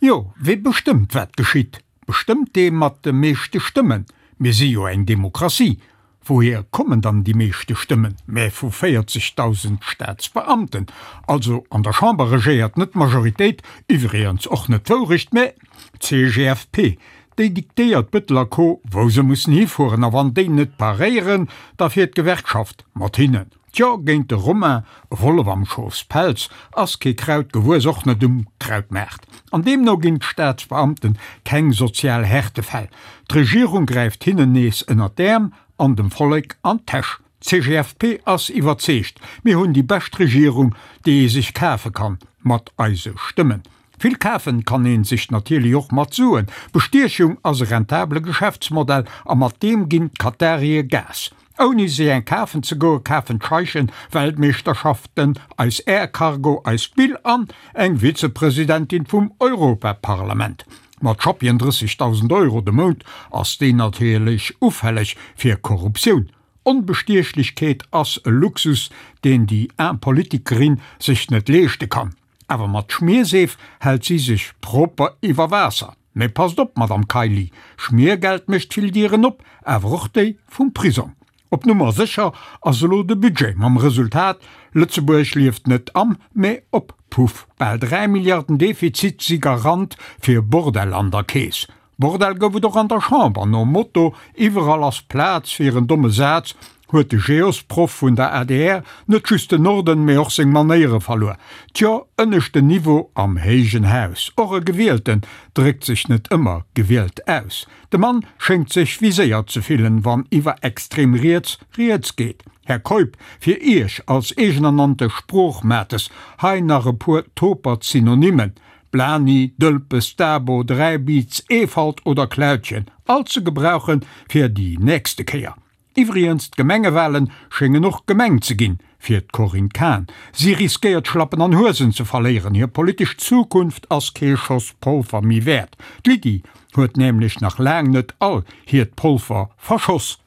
Jo, wee bestëmmt wat geschitt? Bestëmmt dee mat de meeschte Stëmmen? Mir si jo eng Demokratie. Wouhier kommen dann déi meeschte Stëmmen? Mä vu 40.000 Staatsbeamten. Also an der Chamber regéiert net d'Majoritéit, iwwregens och net d'Wourecht, mä d'CGFP. Déi diktéiert Bëttel a Co wou se mussen hifueren a wann déi net paréieren, da fiert d'Gewerkschaft mat hinnen. Tjo, géint de Romain, e Wollef am Schofspelz, ass kee Kraut gewuess, och net um Krautmaart. An deemno ginn d'Staatsbeamten keng sozial Härtefäll. D'Regierung gräift hinnen nees ënnert d'Äerm an dem Vollek an d'Täsch. D'CGFP ass iwwerzeegt, mir hunn déi bescht Regierung, déi ee sech kafe kann, mat eise Stëmmen. Vill kafen kann een sech natierlech och mat Suen. Bestiechung ass e rentabele Geschäftsmodell a mat deem ginn d'Katarie Gas. Ouni sech eng kafen ze goe kafen d'Scheichen Weltmeeschterschaften, eis Air Cargo, eis Bill an eng Vizepresidentin vum Europaparlament. Mat schappien 30.000 Euro de Mount ass déi natierlech ufälleg fir Korruptioun. Onbestiechlechkeet ass e Luxus, deen déi aarm Politikerin sech net leeschte kann. Awer mat Schmierseef hält si sech proper iwwer Waasser. Mee passt op, Madame Kaili, Schmiergeld mécht vill Dieren op, awer och déi vum Prisong. Op Nummer sécher ass elo de Budget, mam Resultat, Lëtzebuerg lieft net am, mee op Puff. Bal 3 Milliarden Defizit si Garant fir Bordell an der Keess. Bordell gouf et och an der Chamber. Nom Motto Iwwerall ass Plaz fir en domme Saz huet de Geosproff vun der adr net just den Norden, mee och seng Manéiere verluer. Tjo, ënneschten Niveau am héijen Haus. Och e Gewielten dréckt sech net ëmmer gewielt aus. De Mann schéngt sech viséiert ze fillen, wann iwwer extrem riets rieds geet. Här Keup, fir Iech als eegenernannte Sproochmates hei nach e puer topert Synonymen, Blani, Dëlpes, Dabo, Dräibiz, Eefalt oder Klautjen, all ze gebrauchen fir déi nächste Kéier. Iwwrigens, d'Gemengewahlen schéngen och gemeng ze ginn fir d'Corinne Cahen. Si riskéiert Schlappen an Huesen ze verléieren, hir politesch Zukunft ass kee Schoss Polfer méi wäert. D'Lydie huet nämlech nach laang net all hiert Polfer verschoss.